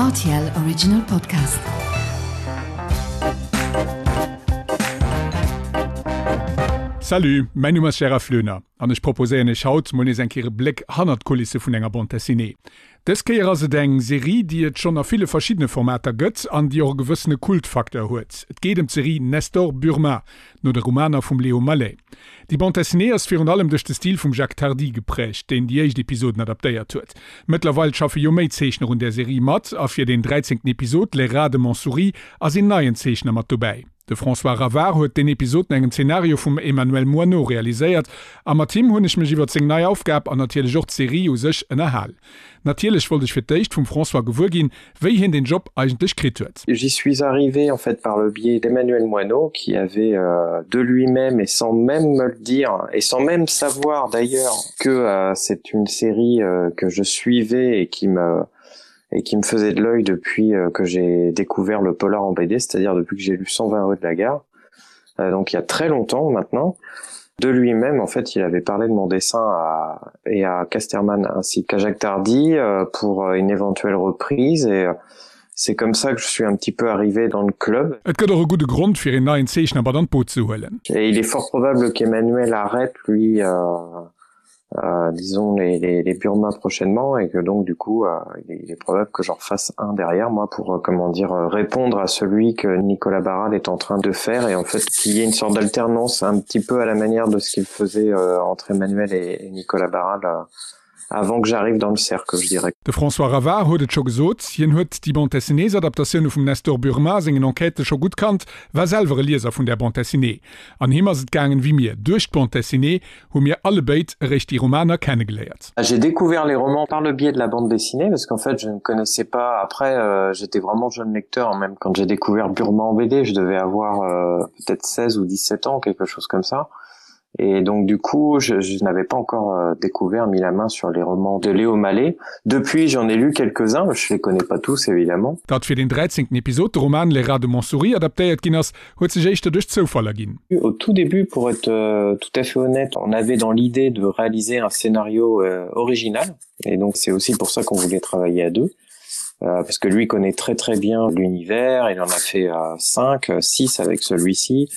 RTL Original Podcast. Salut, mäin Numm ass Gérard Floener an ech proposéieren iech haut mol nees eng Kéier e Bléck hannert d'Kulisse vun enger Bande Dessinée. Dës Kéier ass et eng Serie, déi et schonn a ville verschiddene Formater gëtt an déi och e gewëssene Kultfacteur huet. Et geet ëm d'Serie Nestor Burma, no de Romaner vum Léo Malet. Déi Bande dessinée ass virun allem duerch de Stil vum Jacques Tardi geprägt, deen déi éischt Episoden adaptéiert huet. Mëttlerweil schaffe jo méi Zeechner un där Serie mat, a fir deen dräizéngten Episod, Les rats de Montsouris, ass een neien Zeechner mat dobäi. De François Ravard huet deen Episod no engem Zenario vum Emmanuel Moineau realiséiert, a mat him hunn ech mech iwwert seng nei Aufgab an natierlech och d'Serie u sech ënnerhal. Natierlech wollt ech fir d'éischt vum François gewuer ginn, wéi hien den Job eigentlech kritt huet. J'y suis arrivé en fait par le biais d'Emmanuel Moineau qui avait euh, de lui-même et sans même me le dire et sans même savoir d'ailleurs que euh, c'est une série euh, que je suivais et qui me et qui me faisait de l'œil depuis euh, que j'ai découvert le polar en BD, c'est-à-dire depuis que j'ai lu 120 rue de la gare euh, donc il y a très longtemps maintenant de lui-même en fait il avait parlé de mon dessin à, et à Casterman ainsi qu'à Jacques Tardy euh, pour euh, une éventuelle reprise et euh, c'est comme ça que je suis un petit peu arrivé dans le club. Et gëtt och e gudde Grond fir een neien Zeechner mat an d'Boot ze huelen. Et il est fort probable qu'Emmanuel arrête lui euh, euh, disons les, les, les Burma prochainement et que donc du coup euh, il, est, il est probable que j'en fasse un derrière moi pour euh, comment dire euh, répondre à celui que Nicolas Barral est en train de faire et en fait qu'il y ait une sorte d'alternance un petit peu à la manière de ce qu'il faisait euh, entre Emmanuel et, et Nicolas Barral euh, avant que j'arrive dans le cercle je dirais. De François Ravard huet et scho gesot, hien huet déi Bande dessinées-Adaptatioune vum Nestor Burma sengen Enquêtë scho gutt kannt, war selwer e Lieser vun där Bande dessinée. An him ass et gaangen wéi mir, duerch d'Bande dessinée hu mir allebéid eréischt déi Romaner kennegeléiert. J'ai découvert les romans par le biais de la bande dessinée parce qu'en fait je ne connaissais pas après euh, j'étais vraiment jeune lecteur même quand j'ai découvert Burma en BD je devais avoir euh, peut-être 16 ou 17 ans quelque chose comme ça et donc du coup je, je n'avais pas encore euh, découvert mis la main sur les romans de Léo Mallet depuis j'en ai lu quelques-uns je les connais pas tous évidemment. Datt fir den 13. Episod de Roman Les rats de Montsouris adaptéiert ginn ass, huet sech éischter duerch Zoufall erginn. Au tout début, pour être euh, tout à fait honnête, on avait dans l'idée de réaliser un scénario euh, original et donc c'est aussi pour ça qu'on voulait travailler à deux euh, parce que lui connaît très très bien l'univers, il en a fait euh, 5, 6 avec celui-ci.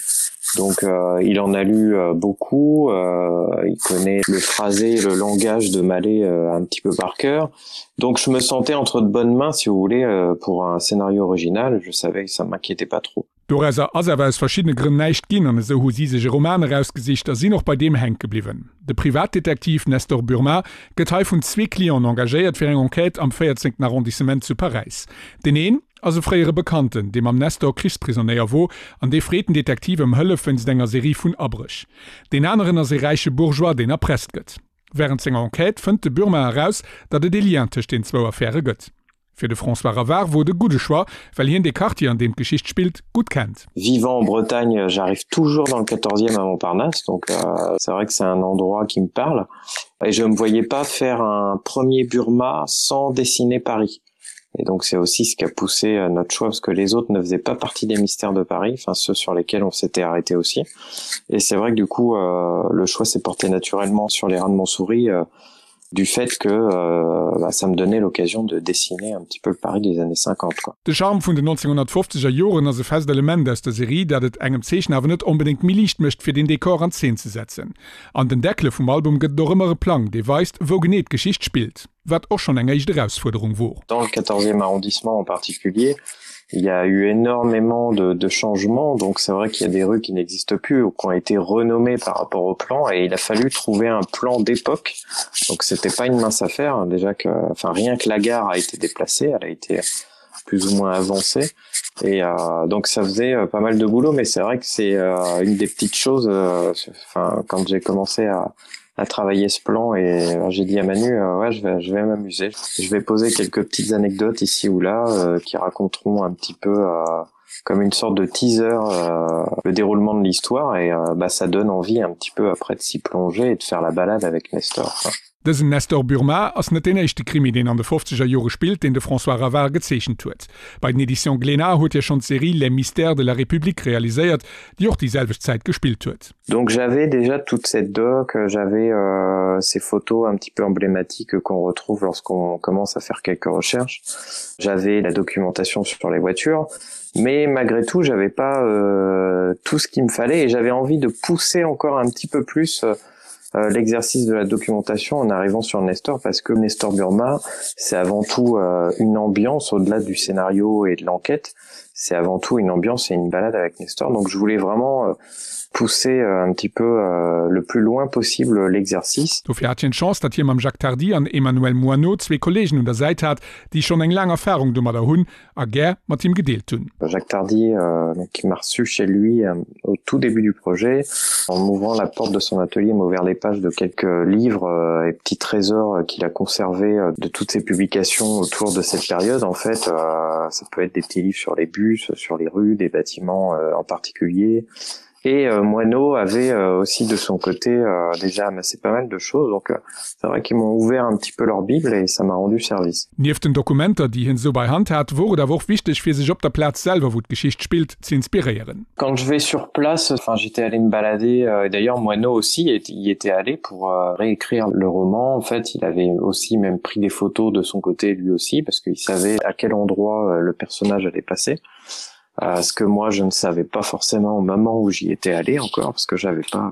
Donc euh, il en a lu euh, beaucoup, euh, il connaît le phrasé, le langage de Mallet euh, un petit peu par cœur. Donc je me sentais entre de bonnes mains si vous voulez euh, pour un scénario original, je savais que ça m'inquiétait pas trop. Dorauser ass awer aus verschiddene Grënn näischt ginn an esou hu si sech e Roman erausgesicht a sinn och bei deem hänke bliwwen. De Privatdetektiv Nestor Burma gëtt hei vun zwee Clienten engagéiert fir eng Enquête am véierzéngten Arrondissement zu Paräis. Deen een ass e fréiere Bekannten, dee mam Nestor Krichsprisonéier wor an dee freet den Detektiv ëm Hëllef wéinst enger Serie vun Abréch. Deen aneren ass e räiche Bourgeois, deen erpresst gëtt. Wärend senger Enquête fënnt de Burma eraus, datt et ee Lien tëscht den zwou Affäre gëtt. Fir de François Ravard wor et e gudde Choix, well hien dee Quartier, an deem d'Geschicht spillt, gutt kennt. Vivant en Bretagne, j'arrive toujours dans le quatorzième à Montparnasse, donc euh, c'est vrai que c'est un endroit qui me parle. Et je me voyais pas faire un premier Burma sans dessiner Paris. Et donc c'est aussi ce qui a poussé euh, notre choix parce que les autres ne faisaient pas partie des mystères de Paris, enfin ceux sur lesquels on s'était arrêté aussi. Et c'est vrai que du coup euh, le choix s'est porté naturellement sur les reins de Montsouris euh, du fait que euh, bah, ça me donnait l'occasion de dessiner un petit peu le Paris des années 50 quoi. De Charme vun den 1950er Joren ass e fest Element aus der Serie, dat et engem Zeechner awer net onbedéngt méi liicht mécht, fir den Dekor an Zeen ze setzen. An den Deckele vum Album gëtt et och ëmmer e Plang, dee weist, wou genee d'Geschicht spillt, wat och schonn eng éischt Erausfuerderung wor. Dans le 14e arrondissement en particulier, il y a eu énormément de, de changements donc c'est vrai qu'il y a des rues qui n'existent plus ou qui ont été renommées par rapport au plan et il a fallu trouver un plan d'époque donc c'était pas une mince affaire déjà que enfin rien que la gare a été déplacée elle a été plus ou moins avancée et euh, donc ça faisait euh, pas mal de boulot mais c'est vrai que c'est euh, une des petites choses euh, enfin quand j'ai commencé à à travailler ce plan et euh, j'ai dit à Manu euh, ouais je vais je vais m'amuser je vais poser quelques petites anecdotes ici ou là euh, qui raconteront un petit peu euh, comme une sorte de teaser euh, le déroulement de l'histoire et euh, bah ça donne envie un petit peu après de s'y plonger et de faire la balade avec Nestor quoi. Dësen Nestor Burma ass net deen éischte Krimi, deen an de fofzeger Jore spillt, deen de François Ravard gezeechent huet. Bei den Editions Glénat huet hie schonn d'Serie Les mystères de la République realiséiert, déi och déi selwecht Zäit gespillt huet. Donc j'avais déjà toute cette doc, j'avais euh, ces photos un petit peu emblématiques qu'on retrouve lorsqu'on commence à faire quelques recherches. J'avais la documentation sur les voitures, mais malgré tout, j'avais pas euh, tout ce qu'il me fallait et j'avais envie de pousser encore un petit peu plus euh, euh, l'exercice de la documentation en arrivant sur Nestor parce que Nestor Burma, c'est avant tout euh, une ambiance au-delà du scénario et de l'enquête, c'est avant tout une ambiance et une balade avec Nestor. Donc je voulais vraiment euh, pousser euh, un petit peu euh, le plus loin possible l'exercice. Dofir hat hien d'Chance, datt hie mam Jacques Tardi an Emmanuel Moineau zwee Kolleegen un der Säit hat, déi schonn eng laang Erfarung domadder hunn a gär mat him gedeelt hunn. Jacques Tardi euh, qui m'a reçu chez lui euh, au tout début du projet en m'ouvrant la porte de son atelier m'a ouvert les pages de quelques livres euh, et petits trésors euh, qu'il a conservé euh, de toutes ses publications autour de cette période en fait euh, ça peut être des petits livres sur les bus sur les rues des bâtiments euh, en particulier et euh, Moineau avait euh, aussi de son côté euh, déjà amassé pas mal de choses donc euh, c'est vrai qu'ils m'ont ouvert un petit peu leur bible et ça m'a rendu service. Nieft den Dokumenter, déi hien esou bei Hand hat, wor et awer och wichteg fir sech op der Plaz selwer, wou d'Geschicht spillt, ze inspiréieren. Quand je vais sur place, enfin j'étais allé me balader euh, et d'ailleurs Moineau aussi y était allé pour euh, réécrire le roman. En fait, il avait aussi même pris des photos de son côté lui aussi parce qu'il savait à quel endroit euh, le personnage allait passer. Euh, ce que moi je ne savais pas forcément au moment où j'y étais allé encore parce que j'avais pas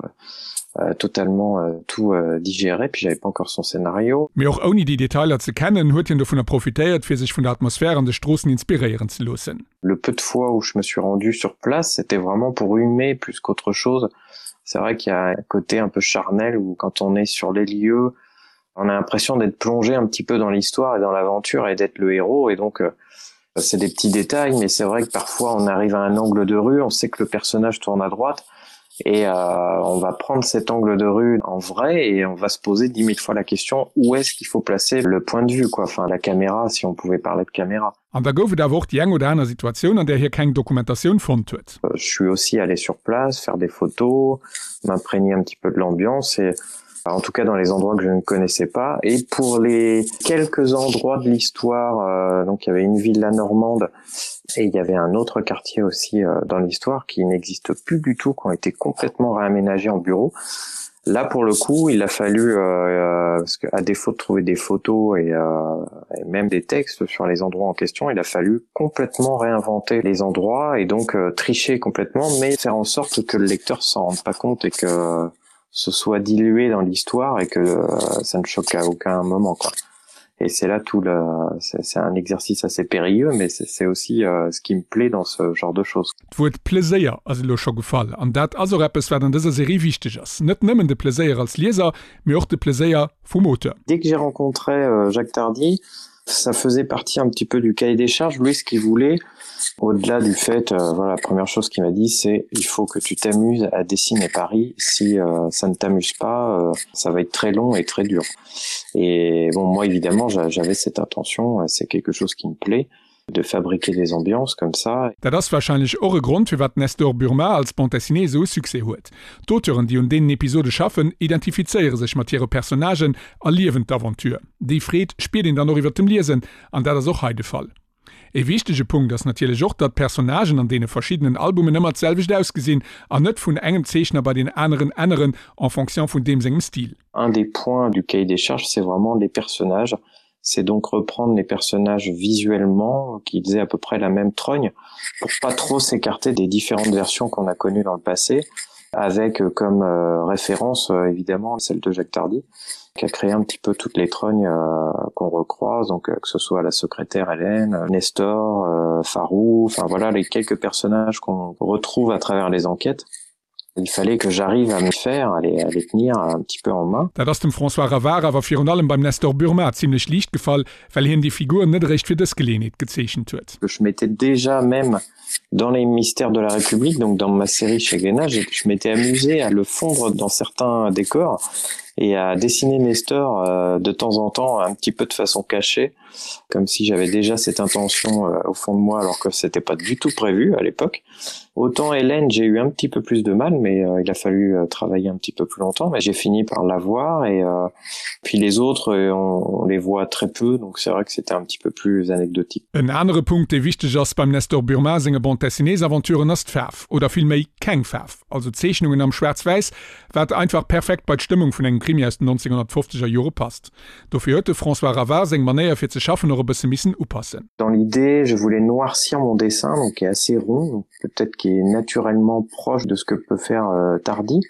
euh, totalement euh, tout euh, digéré puis j'avais pas encore son scénario. Mee och ouni déi Detailer ze kennen, huet hien dovunner profitéiert, fir sech vun der Atmosphär an de Stroossen inspiréieren ze loossen. Le peu de fois où je me suis rendu sur place, c'était vraiment pour humer plus qu'autre chose. C'est vrai qu'il y a un côté un peu charnel où quand on est sur les lieux, on a l'impression d'être plongé un petit peu dans l'histoire et dans l'aventure et d'être le héros et donc euh, c'est des petits détails mais c'est vrai que parfois on arrive à un angle de rue, on sait que le personnage tourne à droite et euh, on va prendre cet angle de rue en vrai et on va se poser 10 000 fois la question où est-ce qu'il faut placer le point de vue quoi enfin la caméra si on pouvait parler de caméra. An da gouf et awer och déi eng oder aner Situatioun, an där hie keng Dokumentatioun fonnt huet. Euh, je suis aussi allé sur place faire des photos, m'imprégner un petit peu de l'ambiance et en tout cas dans les endroits que je ne connaissais pas et pour les quelques endroits de l'histoire euh, donc il y avait une villa normande et il y avait un autre quartier aussi euh, dans l'histoire qui n'existe plus du tout qui ont été complètement réaménagés en bureau là pour le coup il a fallu euh, euh, parce que à défaut de trouver des photos et, euh, et même des textes sur les endroits en question il a fallu complètement réinventer les endroits et donc euh, tricher complètement mais faire en sorte que le lecteur s'en rende pas compte et que euh, ce soit dilué dans l'histoire et que euh, ça ne choque à aucun moment quoi et c'est là tout le c'est un exercice assez périlleux mais c'est aussi euh, ce qui me plaît dans ce genre de choses D'Wuert Pleséier ass elo scho gefall, an dat ass och eppes, wat an dëser Serie wichteg ass. Net nëmmen de Pleséier als Lieser, mee och de Pleséier vum Auteur. Dès que j'ai rencontré euh, Jacques Tardy, ça faisait partie un petit peu du cahier des charges lui ce qu'il voulait au-delà du fait euh, voilà la première chose qu'il m'a dit c'est il faut que tu t'amuses à dessiner Paris si euh, ça ne t'amuse pas euh, ça va être très long et très dur et bon moi évidemment j'avais cette intention c'est quelque chose qui me plaît de fabriquer des ambiances comme ça. Dat ass warscheinlech och e Grond, firwat Nestor Burma als Bande dessinée esou e Succès huet. D'Auteuren, déi un deenen Episode schaffen, identifizéiere sech mat hire Personnagen a liewen d'Aventure. Déi Freed spiert een dann och iwwer dem Liesen, an dat ass och hei de Fall. E wichtege Punkt ass natierlech och, datt d'Personnagen an deene verschiddenen Albumen ëmmer d'selwecht ausgesinn an net vun engem Zeechner bei deen aneren änneren en fonction vun deem sengem Stil. Un des points du cahier des charges, c'est vraiment les personnages. C'est donc reprendre les personnages visuellement qu'ils aient à peu près la même trogne pour pas trop s'écarter des différentes versions qu'on a connues dans le passé avec euh, comme euh, référence euh, évidemment celle de Jacques Tardy qui a créé un petit peu toutes les trognes euh, qu'on recroise donc euh, que ce soit la secrétaire Hélène, Nestor, euh, Farou, enfin voilà les quelques personnages qu'on retrouve à travers les enquêtes. Il fallait que j'arrive à me faire à les, à les tenir un petit peu en main. Dat ass dem François Ravard awer virun allem beim Nestor Burma zimmlech liicht gefall, well hien déi Figur net eréischt fir dës Geleeënheet gezeechent huet. Je m'étais déjà même dans les mystères de la République, donc dans ma série chez Glénat, je m'étais amusé à le fondre dans certains décors. Et à dessiner Nestor euh, de temps en temps un petit peu de façon cachée, comme si j'avais déjà cette intention euh, au fond de moi alors que c'était pas du tout prévu à l'époque. Autant Hélène, j'ai eu un petit peu plus de mal, mais euh, il a fallu euh, travailler un petit peu plus longtemps, mais j'ai fini par l'avoir et euh, puis les autres euh, on, on les voit très peu, donc c'est vrai que c'était un petit peu plus anecdotique. En anere Punkt, dee wichteg ass beim Nestor Burma senge Bande-dessinées-Aventuren ass d'Faarf, oder villméi keng Faarf, also Zeechnungen am Schwaarz-Wäiss, wat einfach perfekt bei d'Stëmmung vun engem Krimi aus den 1950er Jore passt. Dofir huet de François Ravard seng Manéier fir ze schaffen och e bësse missen upassen. Dans l'idée, je voulais noircir mon dessin, donc qui est assez rond, peut-être qui est naturellement proche de ce que peut faire euh, Tardy,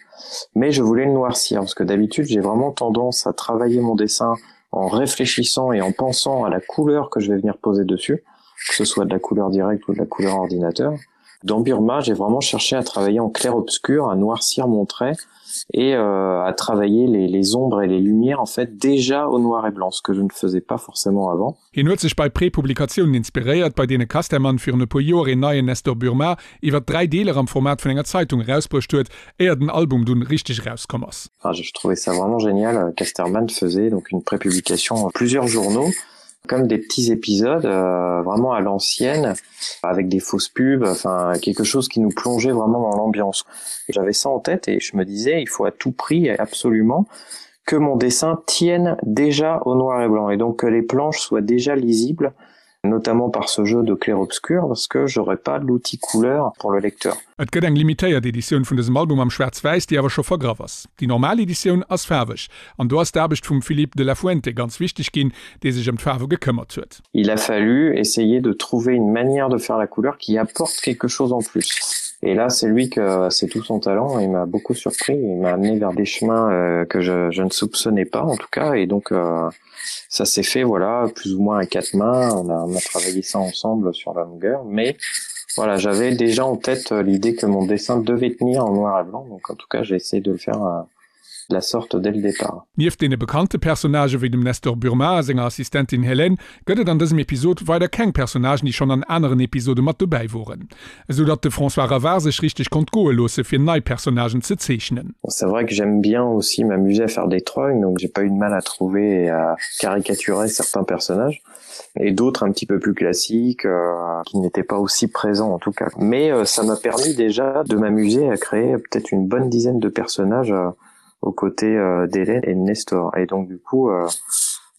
mais je voulais le noircir parce que d'habitude, j'ai vraiment tendance à travailler mon dessin en réfléchissant et en pensant à la couleur que je vais venir poser dessus, que ce soit de la couleur directe ou de la couleur ordinateur. Dans Burma, j'ai vraiment cherché à travailler en clair-obscur, à noircir mon trait et euh, à travailler les, les ombres et les lumières en fait déjà au noir et blanc, ce que je ne faisais pas forcément avant. Hien huet sech bei Prepublikatiounen inspiréiert, bei deene Casterman virun e puer Joer een neien Nestor Burma iwwer 3 Deeler am Format vun enger Zeitung erausbruecht huet, éier den Album dunn richteg erauskomm ass. Enfin, je trouvais ça vraiment génial. Casterman faisait donc une prépublication en plusieurs journaux, comme des petits épisodes euh, vraiment à l'ancienne, avec des fausses pubs, enfin quelque chose qui nous plongeait vraiment dans l'ambiance. J'avais ça en tête et je me disais, il faut à tout prix et absolument que mon dessin tienne déjà au noir et blanc et donc que les planches soient déjà lisibles, notamment par ce jeu de clair-obscur, parce que j'aurais pas l'outil couleur pour le lecteur. Et gëtt eng limitéiert Editioun vun dësem Album am Schwaarz-Wäiss, déi awer scho vergraff ass. Déi normal Editioun ass faarweg, an do ass d'Aarbecht vum Philippe de la Fuente ganz wichteg ginn, dee sech ëm d'Faarwe gekëmmert huet. Il a fallu essayer de trouver une manière de faire la couleur qui apporte quelque chose en plus. Et là, c'est lui que c'est tout son talent, il m'a beaucoup surpris, il m'a amené vers des chemins euh, que je, je ne soupçonnais pas en tout cas et donc euh, ça s'est fait voilà plus ou moins à quatre mains, on a, on a travaillé ça ensemble sur la longueur mais voilà j'avais déjà en tête euh, l'idée que mon dessin devait tenir en noir et blanc donc en tout cas j'ai essayé de le faire euh, de la sorte dès le départ. Nieft deene bekannte Personnagë wéi dem Nestor Burma a senger Assistentin Hélène gëtt et an dësem Episod weider keng Personnagen, déi schonn an aneren Episode mat dobäi woren, esou datt de François Ravard sech richteg konnt goe loosse fir nei Personnagen ze zeechnen. C'est vrai que j'aime bien aussi m'amuser à faire des trognes, donc j'ai pas eu de mal à trouver et à caricaturer certains personnages et d'autres un petit peu plus classiques euh, qui n'étaient pas aussi présents en tout cas. Mais euh, ça m'a permis déjà de m'amuser à créer peut-être une bonne dizaine de personnages euh, aux côtés euh, d'Hélène et de Nestor. Et donc du coup, euh,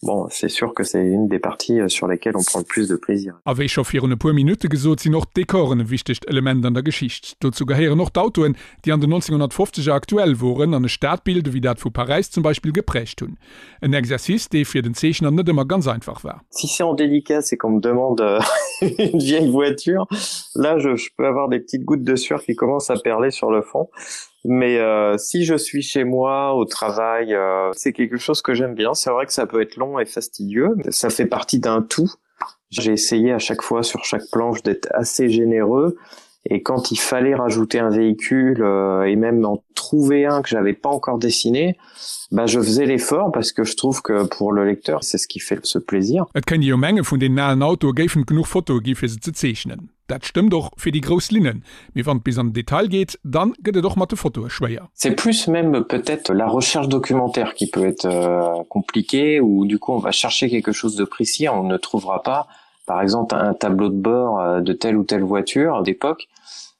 bon, c'est sûr que c'est une des parties euh, sur lesquelles on prend le plus de plaisir. A wéi scho virun e puer Minutte gesot, sinn och d'Dekoren e wichtegt Element an der Geschicht. Dozou gehéieren och d'Autoen, déi an den 1950er aktuell woren an e Stadbild, ewéi dat vu Paräis zum Beispill, geprägt hunn. En Exercice, dee fir den Zeechner net ëmmer ganz einfach war. Si c'est en dédicace et qu'on me demande euh, une vieille voiture, là je, je peux avoir des petites gouttes de sueur qui commencent à perler sur le front. Mais euh, si je suis chez moi au travail, euh, c'est quelque chose que j'aime bien. C'est vrai que ça peut être long et fastidieux, mais ça fait partie d'un tout. J'ai essayé à chaque fois sur chaque planche d'être assez généreux et quand il fallait rajouter un véhicule euh, et même en trouver un que j'avais pas encore dessiné, bah je faisais l'effort parce que je trouve que pour le lecteur c'est ce qui fait ce plaisir. Et kéint ee jo menge vun deenen alen Autoe géifen et genuch Fotoe gi fir se ze zeechnen. Dat stëmmt och fir déi grouss Linnen, mee wann et bis an den Detail geet, dann gëtt et och mat de Fotoe schwéier. C'est plus même peut-être la recherche documentaire qui peut être euh, compliquée ou du coup on va chercher quelque chose de précis, on ne trouvera pas par exemple un tableau de bord euh, de telle ou telle voiture d'époque.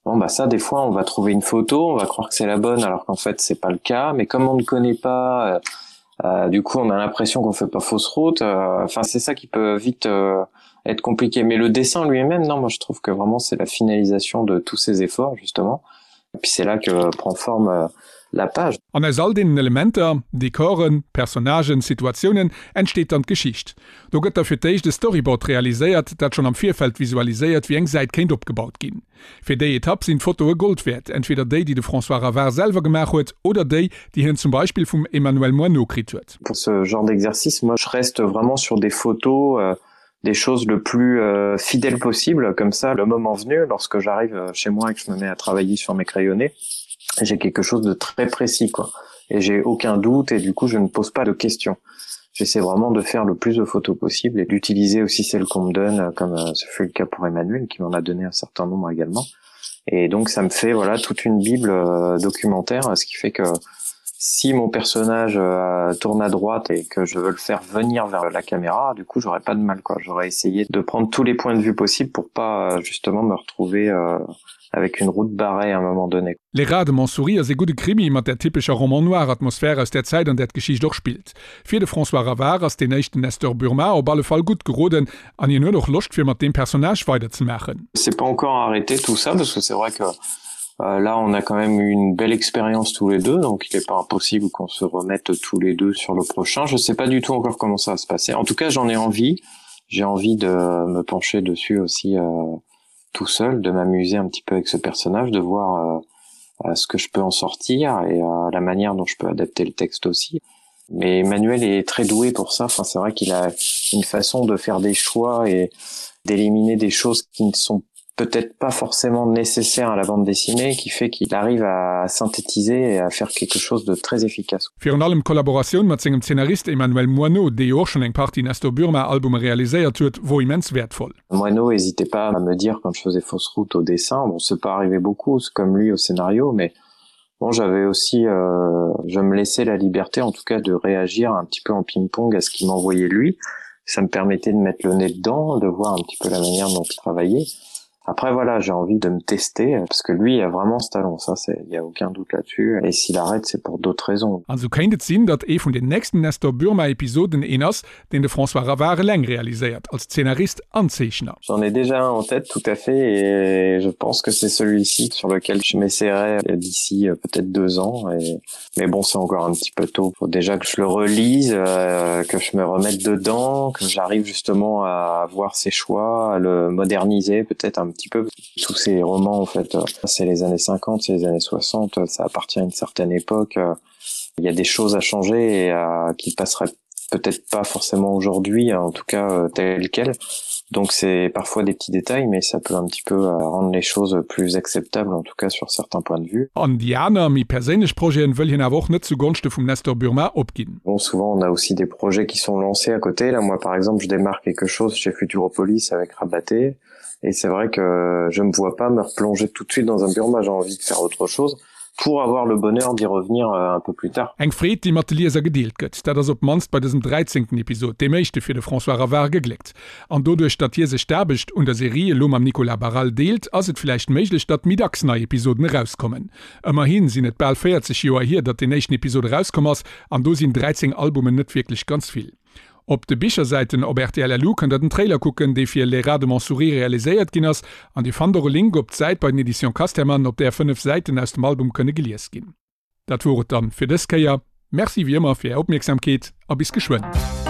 Bon bah ça des fois on va trouver une photo, on va croire que c'est la bonne alors qu'en fait c'est pas le cas, mais comme on ne connaît pas euh, euh, du coup on a l'impression qu'on fait pas fausse route euh, enfin c'est ça qui peut vite euh, être compliqué mais le dessin lui-même non moi je trouve que vraiment c'est la finalisation de tous ces efforts justement et puis c'est là que prend forme euh, la page. An aus all deenen Elementer, Dekoren, Personnagen, Situatiounen, entsteet dann d'Geschicht. Do gëtt da fir d'éischt e Storyboard realiséiert, dat schonn am Virfeld visualiséiert, wéi eng Säit kéint opgebaut ginn. Fir déi Etapp sinn d'Fotoe Gold wäert, entweder déi, déi de François Ravard selwer gemaach huet, oder déi, déi hien zum Beispill vum Emmanuel Moineau kritt huet. Pour ce genre d'exercice, moi je reste vraiment sur des photos, euh, des choses le plus euh, fidèles possible, comme ça, le moment venu, lorsque j'arrive euh, chez moi et que je me mets à travailler sur mes crayonnés, j'ai quelque chose de très précis, quoi. Et j'ai aucun doute et du coup je ne pose pas de questions. J'essaie vraiment de faire le plus de photos possible et d'utiliser aussi celles qu'on me donne, euh, comme euh, ce fut le cas pour Emmanuel, qui m'en a donné un certain nombre également. Et donc ça me fait voilà toute une bible euh, documentaire, ce qui fait que. Si mon personnage euh, tourne à droite et que je veux le faire venir vers la caméra, du coup j'aurais pas de mal quoi. J'aurais essayé de prendre tous les points de vue possibles pour pas euh, justement me retrouver euh, avec une route barrée à un moment donné. Les Rats de Montsouris ass ee gudde Krimi mat där typescher Roman noir Atmosphär aus där Zäit an där d'Geschicht och spillt. Fir de François Ravard ass deen éischten Nestor Burma op alle Fall gutt geroden an hien huet och Loscht fir mat deem Personnage weiderzemaachen. C'est pas encore arrêté tout ça parce que c'est vrai que euh, là on a quand même eu une belle expérience tous les deux donc il est pas impossible qu'on se remette tous les deux sur le prochain. Je sais pas du tout encore comment ça va se passer. En tout cas j'en ai envie. J'ai envie de me pencher dessus aussi euh, tout seul, de m'amuser un petit peu avec ce personnage, de voir euh, ce que je peux en sortir et euh, la manière dont je peux adapter le texte aussi. Mais Emmanuel est très doué pour ça. Enfin, c'est vrai qu'il a une façon de faire des choix et d'éliminer des choses qui ne sont peut-être pas forcément nécessaires à la bande dessinée, qui fait qu'il arrive à synthétiser et à faire quelque chose de très efficace. Virun allem d'Kollaboratioun mat sengem Zeenarist Emmanuel Moineau, dee jo och schonn eng Partie Nestor Burma Albume realiséiert huet, wor immens wäertvoll. Moineau hésitait pas à me dire quand je faisais fausse route au dessin, bon c'est pas arrivé beaucoup, c'est comme lui au scénario, mais bon j'avais aussi euh, je me laissais la liberté en tout cas de réagir un petit peu en ping-pong à ce qu'il m'envoyait lui. Ça me permettait de mettre le nez dedans, de voir un petit peu la manière dont il travaillait. Après voilà, j'ai envie de me tester parce que lui a vraiment ce talent, ça c'est il y a aucun doute là-dessus et s'il arrête c'est pour d'autres raisons. An sou kéint et sinn, datt ee vun den nächsten Nestor Burma Episoden een ass, deen de François Ravard eleng realiséiert, als Zeenarist an Zeechner. J'en ai déjà un en tête tout à fait et je pense que c'est celui-ci sur lequel je m'essaierai d'ici euh, peut-être deux ans et mais bon c'est encore un petit peu tôt faut déjà que je le relise euh, que je me remette dedans que j'arrive justement à voir ses choix à le moderniser peut-être un petit peu tous ces romans en fait euh, c'est les années 50 c'est les années 60 ça appartient à une certaine époque euh, il y a des choses à changer et à, qui passeraient peut-être pas forcément aujourd'hui en tout cas euh, tel quel donc c'est parfois des petits détails mais ça peut un petit peu euh, rendre les choses plus acceptables en tout cas sur certains points de vue. An déi aner, méi perséinlech Projeten wëll hien awer och net zu Gonschte vum Nestor Burma opginn. Bon souvent on a aussi des projets qui sont lancés à côté là moi par exemple je démarre quelque chose chez Futuropolis avec Rabaté et c'est vrai que je me vois pas me replonger tout de suite dans un Burma j'ai envie de faire autre chose pour avoir le bonheur d'y revenir euh, un peu plus tard. Eng Freed, déi mat de Lieser gedeelt gëtt, dat ass op d'mannst bei dësem dräizéngten Episod, deem éischte fir de François Ravard, gegléckt. An doduerch, datt hie sech d'Aarbecht un der Serie elo mam Nicolas Barral deelt, ass et villäicht méiglech, datt méi dacks nei Episoden erauskommen. Ëmmerhi sinn et bal 40 Joer hier, datt deen éischten Episod erauskomm ass, an do sinn 13 Albumen net wierklech ganz vill. Op de Bichersäiten op rtl LU kënnt der den Trailer kucken, dee fir Les Rats de Montsouris realiséiert ginn ass, an Dir fannt och e Link op d'Säit bei den Editions Casterman, op där 5 Säiten aus dem Album kënne gelies ginn. Dat wor et dann fir dës Kéier. Merci wéi ëmmer fir Är Opmierksamkeet a bis geschwënn.